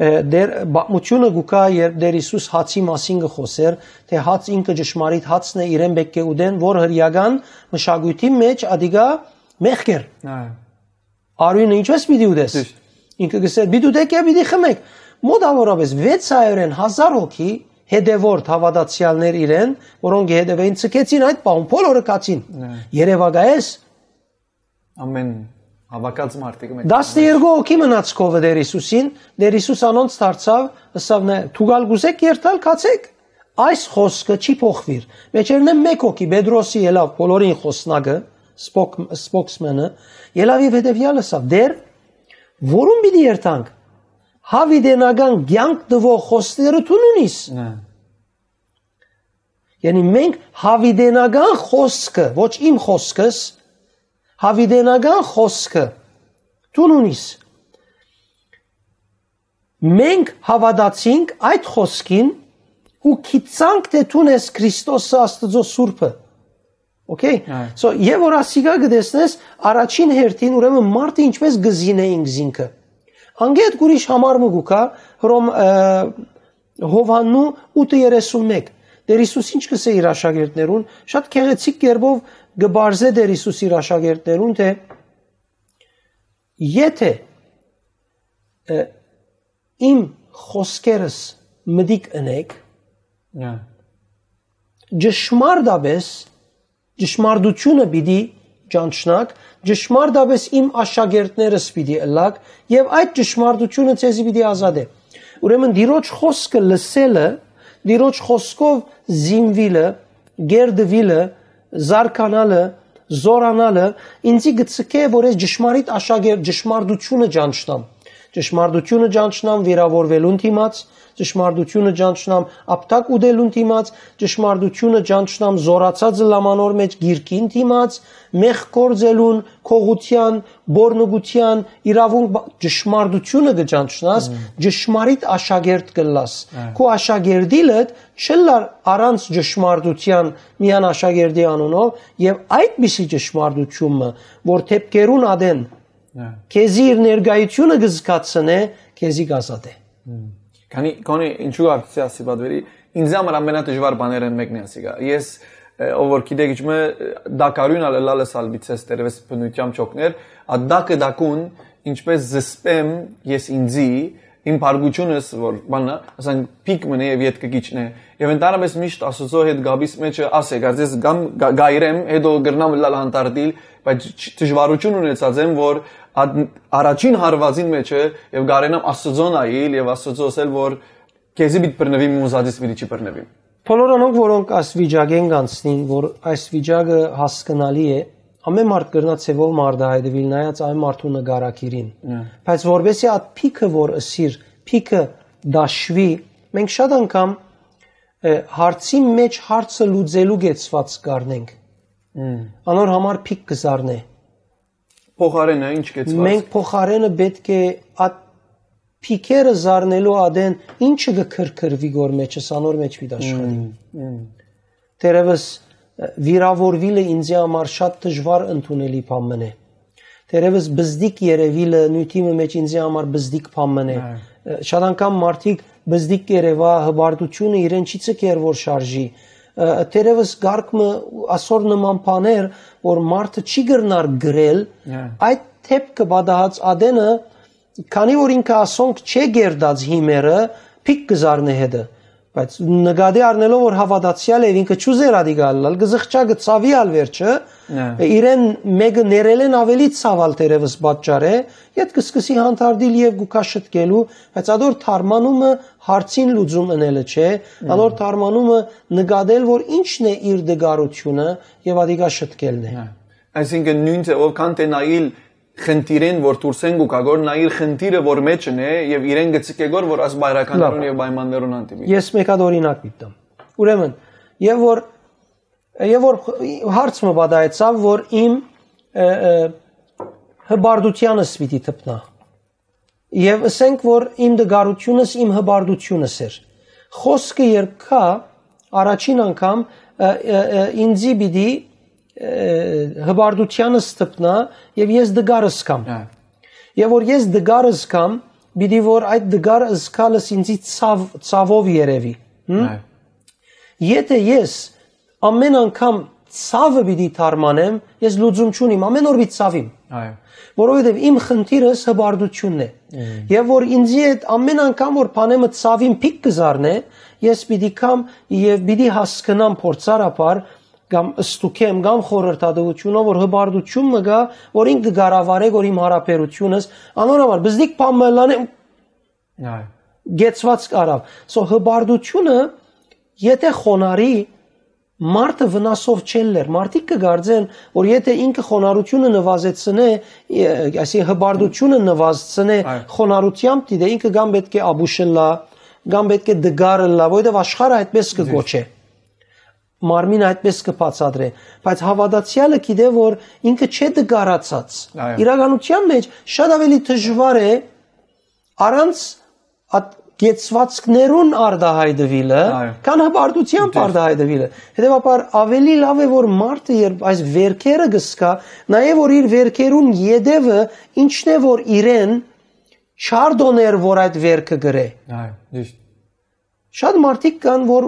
ը, դեր, պատմությունը կու կայ, երբ Տեր Հիսուս հացի մասին կը խօսեր, թէ հաց ինքը ճշմարիտ հացն է, իրեն պէտք է ուտեն, որ հրեական մշակոյթի մեջ ադիգա մեղք էր։ Այո։ Արիւնը ինչպես պիտի ուտես։ Ճիշդ։ Ինքը կսեր, պիտի ուտեք եւ պիտի խմեք։ Մոտավորապես վեց հարիւրէն հազար հոգի հետեւորդ հաւատացեալներ իրեն, որոնք կը հետեւէին, ցկեցին այդ պահուն, բոլորը գացին։ Այո։ Երեւակայես։ Ամեն հավաքած մարդիկ մեկ Տասներկու հոգի մնաց քովը Տեր Հիսուսին, Տեր Հիսուս անոնց դարձաւ, ըսաւ նե, «Դուք ալ կուզեք երթալ, գացեք»։ Այս խօսքը չի փոխուիր։ Մեջերնէ մէկ հոգի, Պետրոսի ելաւ, բոլորին խօսնակը, սպոք-, սպոքսմենը, ելաւ եւ հետեւեալ ըսաւ. «Տէր, որուն պիտի երթանք։ Յաւիտենական կեանք տուող խօսքերը դուն ունիս»։ Հա։ Յանի մենք յաւիտենական խօսքը, ոչ իմ խօսքս, յաւիտենական խօսքը դուն ունիս։ Մենք հաւատացինք այդ խօսքին ու գիտցանք թէ դուն ես Քրիստոսը, Աստուծոյ Սուրբը։ Okay։ Այո։ So, եւ որ ասիկա կը տեսնես, առաջին հերթին, ուրեմն մարդը ինչպես կը զինէ ինքզինքը։ Անկէ յետ ուրիշ համար մը կու գայ, Հռոմ, ը, Յովհաննու ութը երեսուն մէկ։ Տէր Յիսուս ինչ կ'ըսէ իր աշակերտներուն, շատ գեղեցիկ կերպով կը պարզէ Տէր Յիսուս իր աշակերտներուն թէ, «Եթէ, ը, իմ խօսքերս մտիկ ընէք, Հա։ ճշմարտապէս, ճշմարտութիւնը պիտի ճանչնաք, ճշմարտապէս իմ աշակերտներս պիտի ըլլաք, եւ այդ ճշմարտութիւնը ձեզի պիտի ազատէ»։ Ուրեմն Տիրոջ խօսքը լսելը, Տիրոջ խօսքով զինուիլը, կերտուիլը, զարգանալը, զօրանալը ինձի կը ցկէ, որ ես ճշմարիտ աշակերտ, ճշմարտութիւնը ճանչնամ։ Ճշմարտութիւնը ճանչնամ վիրաւորուելուն դիմաց, ճշմարտութիւնը ճանչնամ ապտակ ուտելուն դիմաց, ճշմարտութիւնը ճանչնամ զօրացած լամանոր մէջ գիրքին դիմաց, մեղք գործելուն, քողութեան, բորնուկութեան, իրաւունք, բա-, ճշմարտութիւնը կը ճանչնաս, Մհմ։ ճշմարիտ աշակերտ կ'ըլլաս։ Հա։ Քու աշակերտիլդ չ'ըլլար առանց ճշմարտութեան միան աշակերտի անունով, եւ այդպիսի ճշմարտութիւնը, որ դէպքերուն ատեն Հա։ քեզի իր ներկայությունը կը զգացնէ, քեզի կ'ազատէ։ Հմ։ Քանի, քանի ինչու արդյոք ասի պատվերի, ինձ համար ամենադժվար բաներէն մեկն է ասիկա։ Ես, ը, ով որ գիտեք, իջմը, ը, դակարուն ալ ըլալս ալ բիցես տերևս բնությամբ չօգներ, ա դակը դակուն, ինչպես զսպեմ ես ինձի, իմ բարկությունս, որ բանն է, ասենք, փիք մնե եւ ետքը կիջնե։ Եւ ընդհանրապես միշտ Աստուծոյ հետ գաբիս մեջը ասե, կարծես կամ գա-, գայրեմ, հետո կրնամ ըլալ հանդարտիլ, բայց չ-, դժվարություն ունեցած եմ, որ ա-, առաջին հարուածին մեջը եւ գարենամ Աստուծոյ նայիլ եւ Աստուծոյ ասել, որ քեզի պիտի բռնուիմ, ու ուզածից պիտի չի բռնուիմ։ Բոլոր անոնք, որոնք այս վիճակէն կանցնին, որ այս վիճակը հասկնալի է, ամեն մարդ կրնայ ձեւով արտայայտուիլ նայած այն մարդու նկարագիրին։ Հա։ Բայց որպեսզի այդ փիքը, որ ըսիր, փիքը դաշուի, մենք շատ անգամ, ը, հարցի մեջ հարցը լուծելու կեցված կ'առնենք։ Հմ։ Անոր համար փիք կը զարնէ։ Փոխարենը ինչ կեցված։ Մենք փոխարենը պէտք է այդ փիքերը զարնելու ատեն ինչը կը քրքրուի գոր մեջս, անոր մեջ պիտի աշխատի։ Հմ, հմ։ Թերևս, ը, վիրաւորուիլը ինձի համար շատ դժվար ընդունելի բան մըն է։ Թերևս բզդիկ երեւիլը նիւթի մը մեջ ինձի համար բզդիկ բան մըն է։ Հա։ Ը, շատ անգամ մարդիկ բզդիկ երեւայ, հպարտությունը իրեն չի ցկեր որ շարժի։ Ը, թերևս կարգ մը, ասոր նման բաներ, որ մարդը չի կրնար գրել, Հա։ այդ դէպքը պատահած ատենը, քանի որ ինքը ասոնք չէ կերտած հիմերը, փիք կը զարնէ հետը։ Բայց նկատի առնելով, որ հաւատացեալ է, ինքը չուզեր ադիկա ըլլալ, կը զղջայ, կը ցաւի ալ վերջը, Հա։ իրեն մէկը ներելէն աւելի ցաւալ թերևս պատճառ է, յետ կը սկսի հանդարտիլ եւ գուքա շտկելու, բայց ադոր թարմանումը հարցին լուծում ընելը չէ, Հմ։ անոր թարմանումը նկատել, որ ինչն է իր դգարությունը, եւ ադիկա շտկելն է։ Հա։ Այսինքն նոյն ձեւով քան թէ նայիլ խնդիրեն, որ դուրս են գուքա գոր, նայիլ խնդիրը, որ մեջն է, եւ իրեն գցիկ է գոր, որ աս բայրականներուն Լավ։ եւ պայմաններուն հանդիպի։ Ես մեկ հատ օրինակ պիտի տամ։ Ուրեմն, եւ որ, եւ որ հարց մը պատահեցաւ, որ իմ, ը, ը, հպարտութեանս պիտի թփնայ։ Եւ ըսենք, որ իմ դգարությունս իմ հպարտությունս էր։ Խօսքը երբ կայ, առաջին անգամ, ը, ը, ը, ինձի պիտի, ը, հպարտութեանս թփնայ եւ ես դգար զգամ։ Հա։ Եւ որ ես դգար զգամ, պիտի որ այդ դգար զգալս ինձի ցաւ, ցաւով երևի։ Հմ? Հա։ Եթէ ես ամեն անգամ ցաւը պիտի թարմանեմ, ես լուծում չունիմ, ամեն օր պիտի ցաւիմ։ Այո։ Որովհետեւ իմ խնդիրս հպարտությունն է։ Մհմ։ Եւ որ ինձի հետ ամեն անգամ որ բանեմը ցաւին փիք կը զարնէ, ես պիտի կամ եւ պիտի հասկնամ փորձառաբար կամ ստուգեմ կամ խորհրդատվությունով որ հպարտություն մը գայ, որ ինք կը կառավարէ որ իմ հարաբերությունս, անոր համար բզդիկ բան մը ըլլանեմ, Այո։ գեցված կարաւ։ So հպարտությունը Եթե խոնարհի, մարդը վնասով չ'ելլեր։ Մարդիկ կը կարծեն, որ եթե ինքը խոնարհութիւնը նուազեցնէ, այսինքն հպարտութիւնը նուազցնէ, Այո։ խոնարհութեամբ դիտէ, ինքը կամ պէտք է աբուշ ըլլայ, կամ պէտք է դգար ըլլայ, որովհետեւ աշխարհը այդպես կը Ճիշդ։ Գոչէ։ Մարմինը այդպես կը բացատրէ, բայց հաւատացեալը գիտէ, որ ինքը չէ դգարացած։ Այո։ Իրականութեան մէջ շատ աւելի դժուար է առանց այդ կեցուածքներուն արտահայտուիլը, Այո։ քան հպարտությամբ Ճիշդ։ Արտահայտուիլը։ Հետեւաբար աւելի լաւ է, որ մարդը երբ այս վերքերը կը զգայ, նաեւ որ իր վերքերուն յետեւը ինչն է, որ իրեն չարդոներ, որ այդ վերքը կրէ։ Այո, ճիշտ։ Շատ մարդիկ կան, որ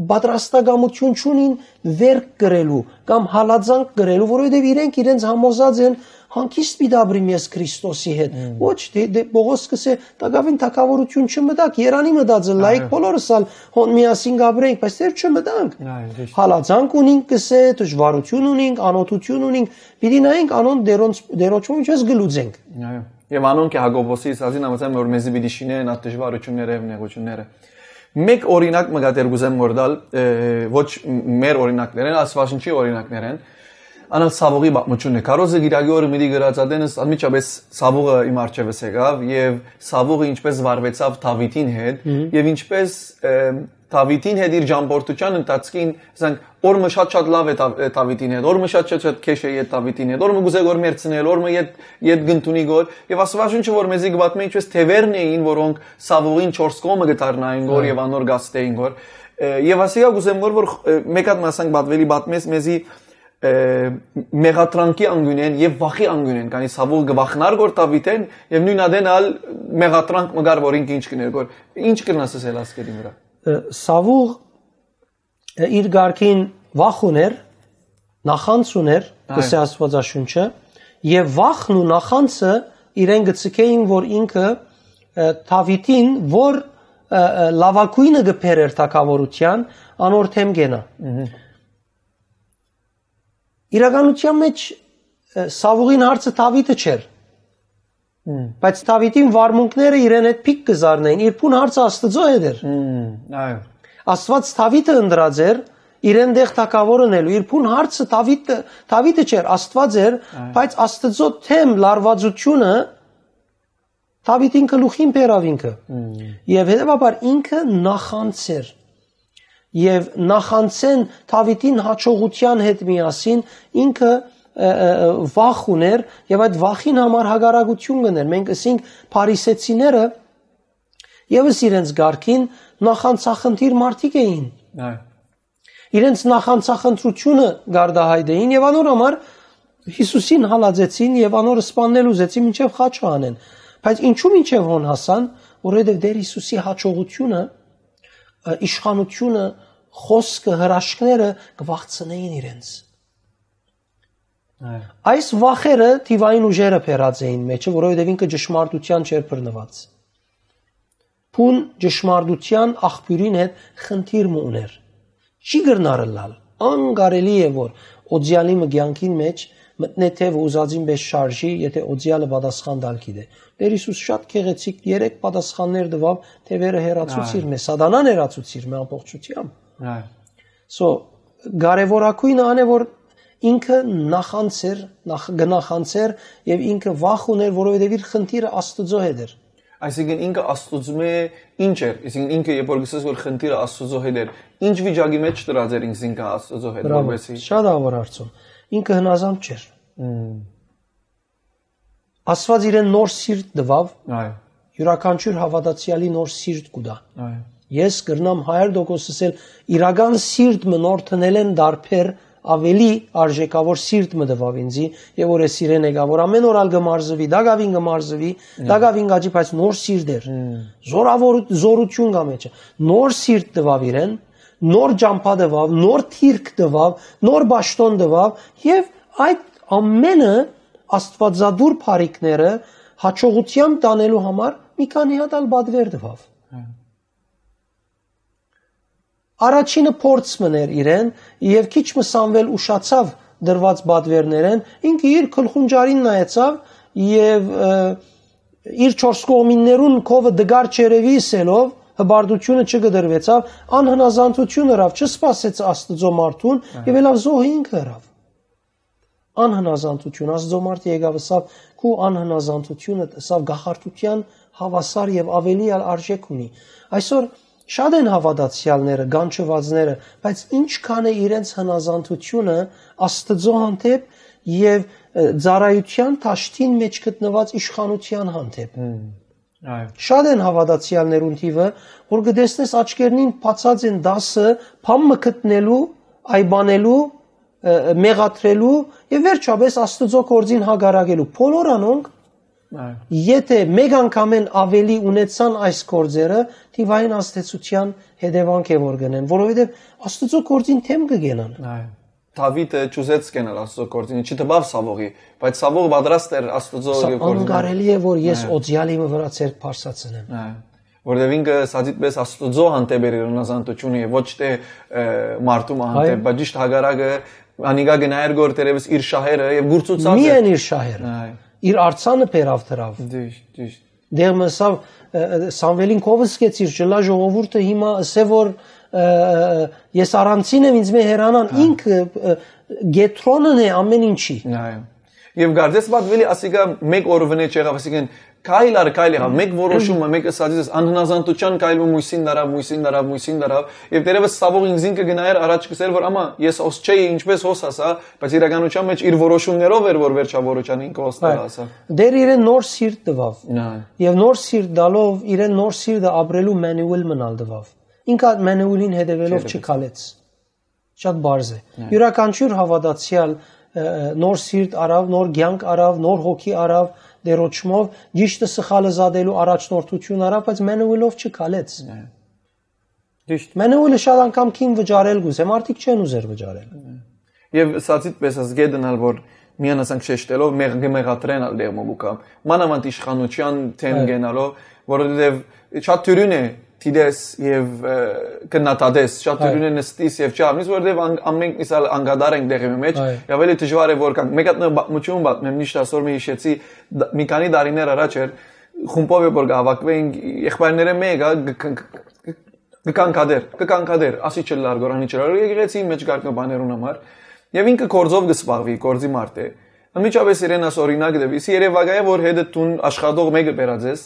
պատրաստակամություն չունին վերք կրելու կամ հալածանք կրելու, որովհետեւ իրենք իրենց համոզած են, հանգիստ պիտի ապրիմ ես Քրիստոսի հետ։ Ոչ, դե, դե, Պողոս կսէ, տակաւին թագաւորութիւն չմտաք, երանի մտածը լայք, Այո։ Բոլորս ալ հոն միասին կապրենք, բայց դեռ չմտանք։ Այո, ճիշտ։ Հալածանք ունինք, կսէ, դժուարություն ունինք, անօթութիւն ունինք, պիտի նայենք անոնց դերոնց, դերոջում ինչպես գլուծենք։ Այո։ Եւ անոնք է Յակոբոսի ասածին համաձայն, որ մեզի պիտի շինեն այդ դժվարությունները եւ նեղությունները։ Մեկ օրինակ մը կա դեռ կուզեմ որ տալ, ը, ոչ մեր օրինակներեն, Աստվածաշնչի օրինակներեն, անալ Սավուղի պատմությունն է։ Քարոզը գիրագի օրը միտի գրած ատենս անմիջապես Սավուղը իմ առջևս եկավ եւ Սավուղը ինչպես վարվեցավ Դավիթին հետ Մհմ։ Եւ ինչպես, ը, Դավիթին հետ իր ճամբորդության ընթացքին, ասենք, օր մը շատ-շատ լավ է Դավ-, Դավիթին հետ, օր մը շատ-շատ քեշ է յետ Դավիթին հետ, օր մը կուզե գոր մերցնել, օր մը յետ, յետ գնտունի գոր, եւ Աստվածաշունչը որ մեզի կպատմէ, ինչպես թեւերն էին, որոնք Սավուղին չորս կողմը կդառնային գոր Այո։ Եւ անոր գաստեին գոր, ը, եւ ասիկա կուզեմ գոր, որ, ը, մեկ հատ մասանք պատվելի պատմես մեզի, ը, մեղատրանքի անգունեն եւ վախի անգունեն, քանի Սավուղ կվախնար գոր Դավիթեն, եւ նույն ադեն ալ մեղատրանք մը գար, որ ինքը ինչ կներ գոր, ինչ կրնաս ասել ասկերին վրա։ Ը, Սավուղ իր կարգին վախ ուներ, նախանձ ուներ, Այո։ Կսե Աստվածաշունչը, եւ վախն ու նախանձը իրեն գցկեին, որ ինքը, ը, Դավիթին, որ, ը, ը, լավագույնը կբերեր թագաւորության, անոր դէմ կենայ։ Մհմ։ Իրականության մէջ, ը, Սավուղին հարցը Դավիթը չէր, Մհմ։ Բայց Դավիթին վարմունքները իրեն հետ փիկ կը զարնային, իր բուն հարցը Աստծո հետ էր։ Մհմ, այո։ Աստված Դավիթը ընտրած էր, իրեն դեղ թագաւոր ընելու, իր բուն հարցը Դավիթը, Դավիթը չէր, Աստված էր, Այո։ Բայց Աստծո թեմ լարվածությունը Դավիթին գլուխին բերաւ ինքը։ Մհմ։ Եւ հետեւաբար ինքը նախանձ էր։ Եւ նախանձեն Դավիթին հաջողության հետ միասին ինքը, ը, ը, ը, վախ ուներ եւ այդ վախին համար հակառակություն կներ։ Մենք ըսինք փարիսեցիները եւս իրենց կարգին նախանձախնդիր մարդիկ էին։ Այո։ Իրենց նախանձախնդրությունը գարդահայտեին եւ անոր համար Յիսուսին հալածեցին եւ անոր սպաննել ուզեցին մինչեւ խաչը անեն։ Բայց ինչու մինչեւ հոն հասան, որովհետեւ Տեր Յիսուսի հաջողությունը, ը, իշխանությունը, խոսքը, հրաշքները կվախցնեին իրենց։ Այո։ Այս վախերը թիվային ուժերը բերած էին մեջը, որովհետեւ ինքը ճշմարտության չէր բռնված։ Բուն ճշմարտության աղբիւրին հետ խնդիր մը ուներ։ Չի կրնար ըլլալ, անկարելի է որ օծեալի մը կեանքին մէջ մտնէ թեւը ուզածին պես շարժի, եթե օծեալը պատասխան տալ գիտէ։ Տեր Յիսուս շատ գեղեցիկ երեք պատասխաններ տուաւ, թեւերը հեռացուցիր Այո։ Մե, սատանան հեռացուցիր մե ամբողջությամբ։ Այո։ So, կարեւորագույնը ան է, որ ինքը նախանձ էր, նախ-, կնախանձեր եւ ինքը վախ ուներ, որովհետեւ իր խնդիրը Աստուծո հետ էր։ Այսինքն ինքը Աստուծմէ ինչ էր, այսինքն ինքը երբ որ գսես որ խնդիրը Աստուծո հետ էր, ինչ վիճակի մեջ դրած էր ինքզինքը Աստուծո հետ, Բրավո, որովհետեւ շատ ահավոր հարցում։ Ինքը հնազանդ չէր։ Մմ։ Աստված իրեն նոր սիրտ տվավ, Այո։ Յուրաքանչյուր հաւատացեալի նոր սիրտ կու տայ։ Այո։ Ես կրնամ հարյուր տոկոս ասել, իրական սիրտ մը նոր տնելէն դարբեր ավելի արժեքաւոր սիրտ մը տվավ ինձի, եւ որ ես իրեն եկա, որ ամեն օր ալ կը մարզվի, տակաւին կը մարզվի, Մմ։ Տակաւին կաճի, բայց նոր սիրտ էր։ Մմ։ Զորավոր-, զորություն կա մեջը։ Նոր սիրտ տվավ իրեն, նոր ճամբա տվավ, նոր թիրք տվավ, նոր պաշտօն տվավ, եւ այդ ամենը աստուածադուր բարիքները հաջողությամբ տանելու համար մի քանի հատ ալ պատվեր տվավ։ Հա։ Առաջինը փորձ մներ իրեն, եւ քիչ մը Սամուէլ ուշացավ դրված պատվերներեն, ինքը իր գլխունջարին նայեցավ եւ, ը, իր չորս կողմիններուն քովը դգար չերեւի ըսելով, Հպարտությունը չկտրուեցաւ, անհնազանդութիւն ըրաւ, չսպասեց Աստուծոյ մարդուն եւ ելաւ զոհ ինքը ըրաւ։ Անհնազանդութիւն, Աստուծոյ մարդը եկաւ ըսաւ, քու անհնազանդութիւնը ըսաւ գահարտութեան հաւասար եւ աւելի ալ արժէք ունի։ Այսօր շատ են հաւատացեալները, գանչուածները, բայց ինչքան է իրենց հնազանդութիւնը Աստուծոյ հանդէպ եւ, ը, ծառայութեան դաշտին մէջ գտնուած իշխանութեան հանդէպ։ Այո։ Շատ են հաւատացեալներուն թիւը, որ կը տեսնես աչքերնին բացած են դասը, բան մը գտնելու, այբանելու, ը, մեղադրելու եւ վերջապէս Աստուծոյ գործին հակառակելու։ Բոլոր անոնք, այո, եթէ մեկ անգամէն աւելի ունեցան այս գործերը, թիւային ազդեցութեան հետեւանք է որ կ'ընեն, որովհետեւ Աստուծոյ գործին դէմ կը կենան։ Այո։ Դաւիթը չուզեց կենալ Աստուծոյ գործին, չտպաւ Սաւողի, բայց Սաւող պատրաստ էր Աստուծոյ Սա եւ գործին։ Անկարելի է, որ ես, այո, օծեալի մը վրայ ձեռք բարձրացնեմ։ Այո։ Որտեւ ինքը սա դիտպես Աստուծոյ հանդէպ էր իր հնազանդութիւնը եւ ոչ թէ, ը, մարդու հանդէպ, այո, բայց ճիշդ հակառակը, անիկա գնայր գոր թերեւս իր շահերը եւ գուրցուցած էր։ Միայն իր շահերը։ Այո։ Իր արձանը բերաւ դրաւ։ Ճիշդ, ճիշդ։ Դեռ մսավ, ը, ը, Սամուելին քովս կեցիր, չլա ժողովուրդը հիմա ըսե որ, ը, ը, ես առանցին եմ, ինձ մե հեռանան, հա, ինքը, ը, կեդրոնն է ամեն ինչի։ Այո։ Եւ կարծես պատվելի ասիկա մեկ օր վնե չեղավ, ասիկեն քայլ առ քայլ եղավ, մեկ որոշումը, մեկ ըսածից, անհնազանդության քայլը մույսին դարավ, մույսին դարավ, մույսին դարավ, եւ դերևս Սաւող ինքզին կը գնայր առաջ կսեր, որ ամա ես հոս չէի, ինչպես հոս ասա, բայց իրականության մեջ իր որոշումներով էր, որ վերջավորության ինքը հոս, այո, դարը ասա։ Դեռ իրեն նոր սիրտ տուաւ։ Այո։ Եւ նոր սիրտ տալով իրեն նոր սիրտը ապրելու manual մնալ տուաւ։ Ինքը այդ manual-ին հետեւելով չքալեց։ Չքալեց։ Շատ բարձ է։ Այո։ Յուրաքանչյուր հաւատացեալ, ը, ը, նոր սիրտ առաւ, նոր կեանք առաւ, նոր հոգի առաւ, դերոճմով, ճիշդը սխալը զատելու առաջնորդություն առաւ, բայց manual-ով չքալեց։ Այո։ Ճիշդ։ Manual-ը շատ անգամ կին վճարել կուզե, մարդիկ չեն ուզեր վճարել։ Այո։ Եւ սա դիտպես ես գետնալ, որ միան ասանք շեշտելով մեղ-, կը մեղադրեն ալ դեղմոմուկա։ Մանավանդ իշխանության դէմ, այո, գենալով, որովհետեւ շատ դյուրին է դիտես եւ, ը, քննադատես, շատ, այո, դյուրին է նստիս եւ չհամնիս, որովհետեւ ան-, ամենք միսալ անկատար ենք դեղի մեջ, այո, եւ ավելի դժուար է որ կան։ Մեկ հատ նոր պատմություն պատմեմ, միշտ ասոր մի հիշեցի, դ-, մի քանի տարիներ առաջ էր, խումբով է որ կհավաքվեինք, եղբայրները մեկը գ-, գ-, գ-, գ-, կկանգադեր, կկանգադեր, ասի չլար գոր, անի չլար, եկեղեցի մեջ կարգ մը բաներուն համար, եւ ինքը գործով կը զբաղվի, գործի մարդ է։ Անմիջապես իրեն աս օրինակ տվի, սի երևակայ է, որ հետը տուն աշխատող մեկը բերած ես,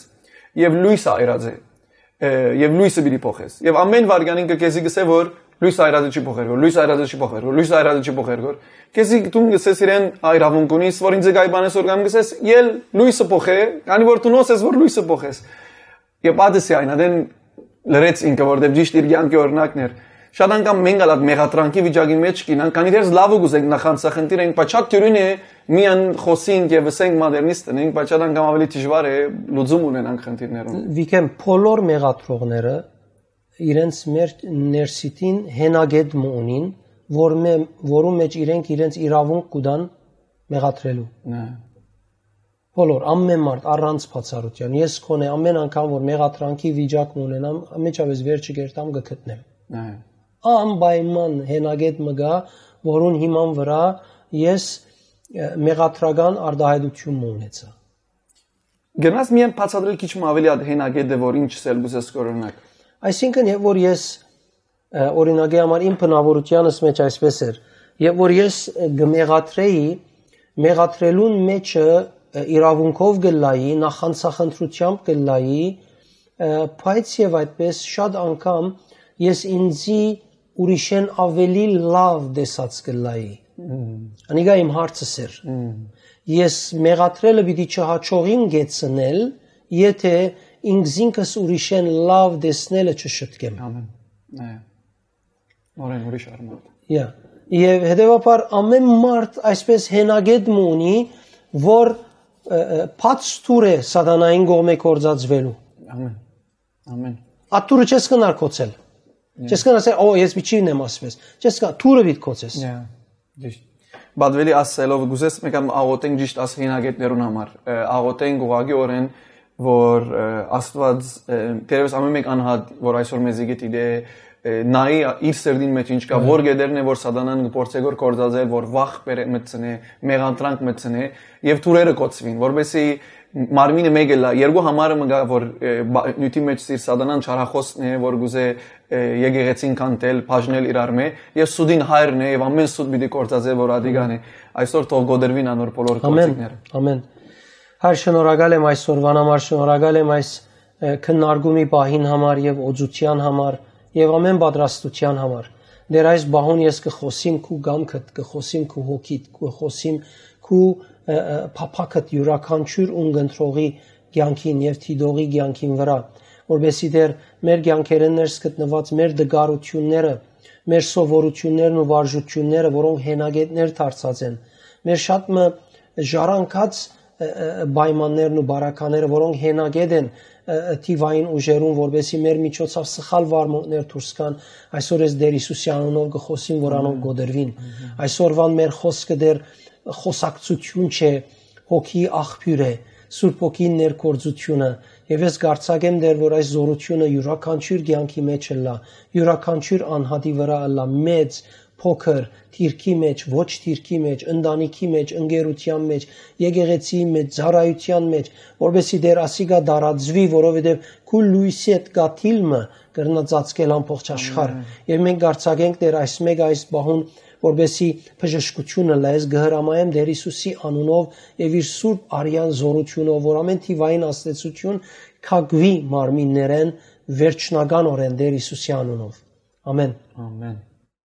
եւ լոյս այրած է, ը, եւ լոյսը պիտի փոխես։ Եւ ամեն վարքան ինքը քեզի կսե, որ լոյս այրածը չի փոխեր, որ լոյս այրածը չի փոխեր, որ լոյս այրածը չի փոխեր, որ քեզի տուն կսես իրեն այրավունք ունիս, որ ինձ գայ բանես որ կամ կսես, ել լոյսը փոխե, քանի որ դու նոս ես, որ լոյսը փոխես։ Եւ պատսի այն, ադեն լրեց ինքը, որտեւ ճիշտ իր կյանքի օրինակն էր։ Շատ անգամ մենք ալ այդ մեղադրանքի վիճակի մեջ կինանք, քանի դեռ լավ ու կուզենք նախանցախնդիր ենք, բայց շատ դյուրին է միան խոսենք եւ ըսենք մադերնիստ ենք, բայց շատ անգամ ավելի դժուար է լուծում ունենանք խնդիրներուն։ Վիգէն, բոլոր մեղադրողները իրենց մեր ներսիտին հենակետ մը ունին, որ մե-, որու մեջ իրենք իրենց իրավունք կու տան մեղադրելու։ Նայ։ Բոլոր, ամեն մարդ, առանց բացառութեան։ Ես քոնե ամեն անգամ, որ մեղադրանքի վիճակ մը ունենամ, անմիջապես վերջը կերտամ կը գտնեմ։ Նայ։ Անպայման հենակետ մը գա, որուն հիման վրա ես, ը, մեղադրական արտահայտություն մը ունեցա։ Գնաս միայն բացատրել քիչ մը ավելի այդ հենակետը, որ ինչ սել կուզես կորոնակ։ Այսինքն, երբ որ ես, ը, օրինակի համար իմ բնավորությանս մեջ այսպես էր, երբ որ ես, ը, կմեղադրեի, մեղադրելուն մեջը, ը, իրավունքով կլայի, նախանցախնդրությամբ կլայի, ը, բայց եւ այդպես շատ անգամ ես ինձի ուրիշեն ավելի լավ տեսած կլայի։ Մմ։ Անիկա իմ հարցս էր։ Մմ։ Ես մեղադրելը պիտի չհաջողիմ գեցնել, եթե ինքզինքս ուրիշեն լավ տեսնելը չշտկեմ։ Ամեն։ Այո։ Նորեն ուրիշ արմատ։ Յա։ Եւ հետեւաբար ամեն մարդ այսպես հենակետ մը ունի, որ, ը, ը, բաց թուր է սատանային կողմէ գործածվելու։ Ամեն։ Ամեն։ Աթուրը չես կնար կոչել։ Յա։ Չես կնար ասել, «Օ, ես պիտի չինեմ ասպես»։ Չես կնար, թուրը պիտի կոչես։ Յա, ճիշտ։ Բադվելի ասելով, գուզես մեկ անգամ աղոթենք ճիշտ աս հենակետներուն համար։ Ը, աղոթենք ուղղակի օրեն, որ, ը, Աստված, ը, թերևս ամեն մեկ անհատ, որ այսօր մեզի գիտի, դե, ը, նայի իր սրտին մեջ ինչ կա, յա, որ գետերն է, որ սատանան կփորձե գոր գործածել, որ վախ բերե մտցնե, մեղադրանք մտցնե, եւ թուրերը կոչվին, որպեսզի մարմինը մեկը լա, երկու համարը մը գա, որ, ը, բա-, նիւթի մեջ սիր սատանան չարախոսն է, որ գուզե, ը, եկեղեցին քանդել, բաժնել իրար մէ, եւ սուտին հայրն է, եւ ամեն սուտ պիտի գործածէ, որ ադիգան է։ Այսօր թող գոդրվին անոր բոլոր Ամեն, գործիքները։ Ամեն։ Հայր, շնորհակալ եմ այսօրվան համար, շնորհակալ եմ այս, ը, քննարկումի պահին համար եւ օծության համար եւ ամեն պատրաստության համար։ Դեր այս պահուն ես կը խոսիմ քու կամքդ, կը խոսիմ քու հոգիդ, կը խոսիմ քու, ը, ը, փափաքդ յուրաքանչյուր ուն կընտրողի կեանքին եւ դիտողի կեանքին վրայ, որպեսզի դեր մեր կեանքերէն ներս գտնուած մեր դգարութիւնները, մեր սովորութիւններն ու վարժութիւնները, որոնք հենակետներ դարձած են, մեր շատ մը ժառանգած, ը, ը, պայմաններն ու բարակաները, որոնք հենակետ են, ը, ը, թիվային ուժերուն, որպեսզի մեր միջոցով սխալ վարմունքներ դուրս գան, այսօր ես Տեր Հիսուսի անունով կը խոսիմ, որ անոնք գոդրվին։ Այսօրվան մեր խոսքը դեր խոսակցություն չէ, հոգի աղբիւր է, Սուրբ Հոգին ներգործությունը, եւ ես կ'արձակեմ դեր, որ այս զորությունը յուրաքանչյուր կեանքի մեջ ըլլա, յուրաքանչյուր անհատի վրայ ըլլա, մեծ, փոքր, դիրքի մեջ, ոչ դիրքի մեջ, ընտանիքի մեջ, ընկերության մեջ, եկեղեցիի մեջ, ծառայության մեջ, որպեսզի դեր ասիկա տարածուի, որովհետեւ քու լոյսի հետ կաթիլ մը կրնա ծածկել ամբողջ աշխարհ։ Ամեն։ Եւ մենք կ'արձակենք դեր այս մեկը այս պահուն, որպեսզի բժշկությունը լայ, ես կը հրամայեմ Տեր Հիսուսի անունով եւ իր սուրբ արյան զորությունով, որ ամեն թիվային ազդեցություն քակուի մարմիններեն վերջնականօրէն Տեր Հիսուսի անունով։ Ամեն։ Ամեն։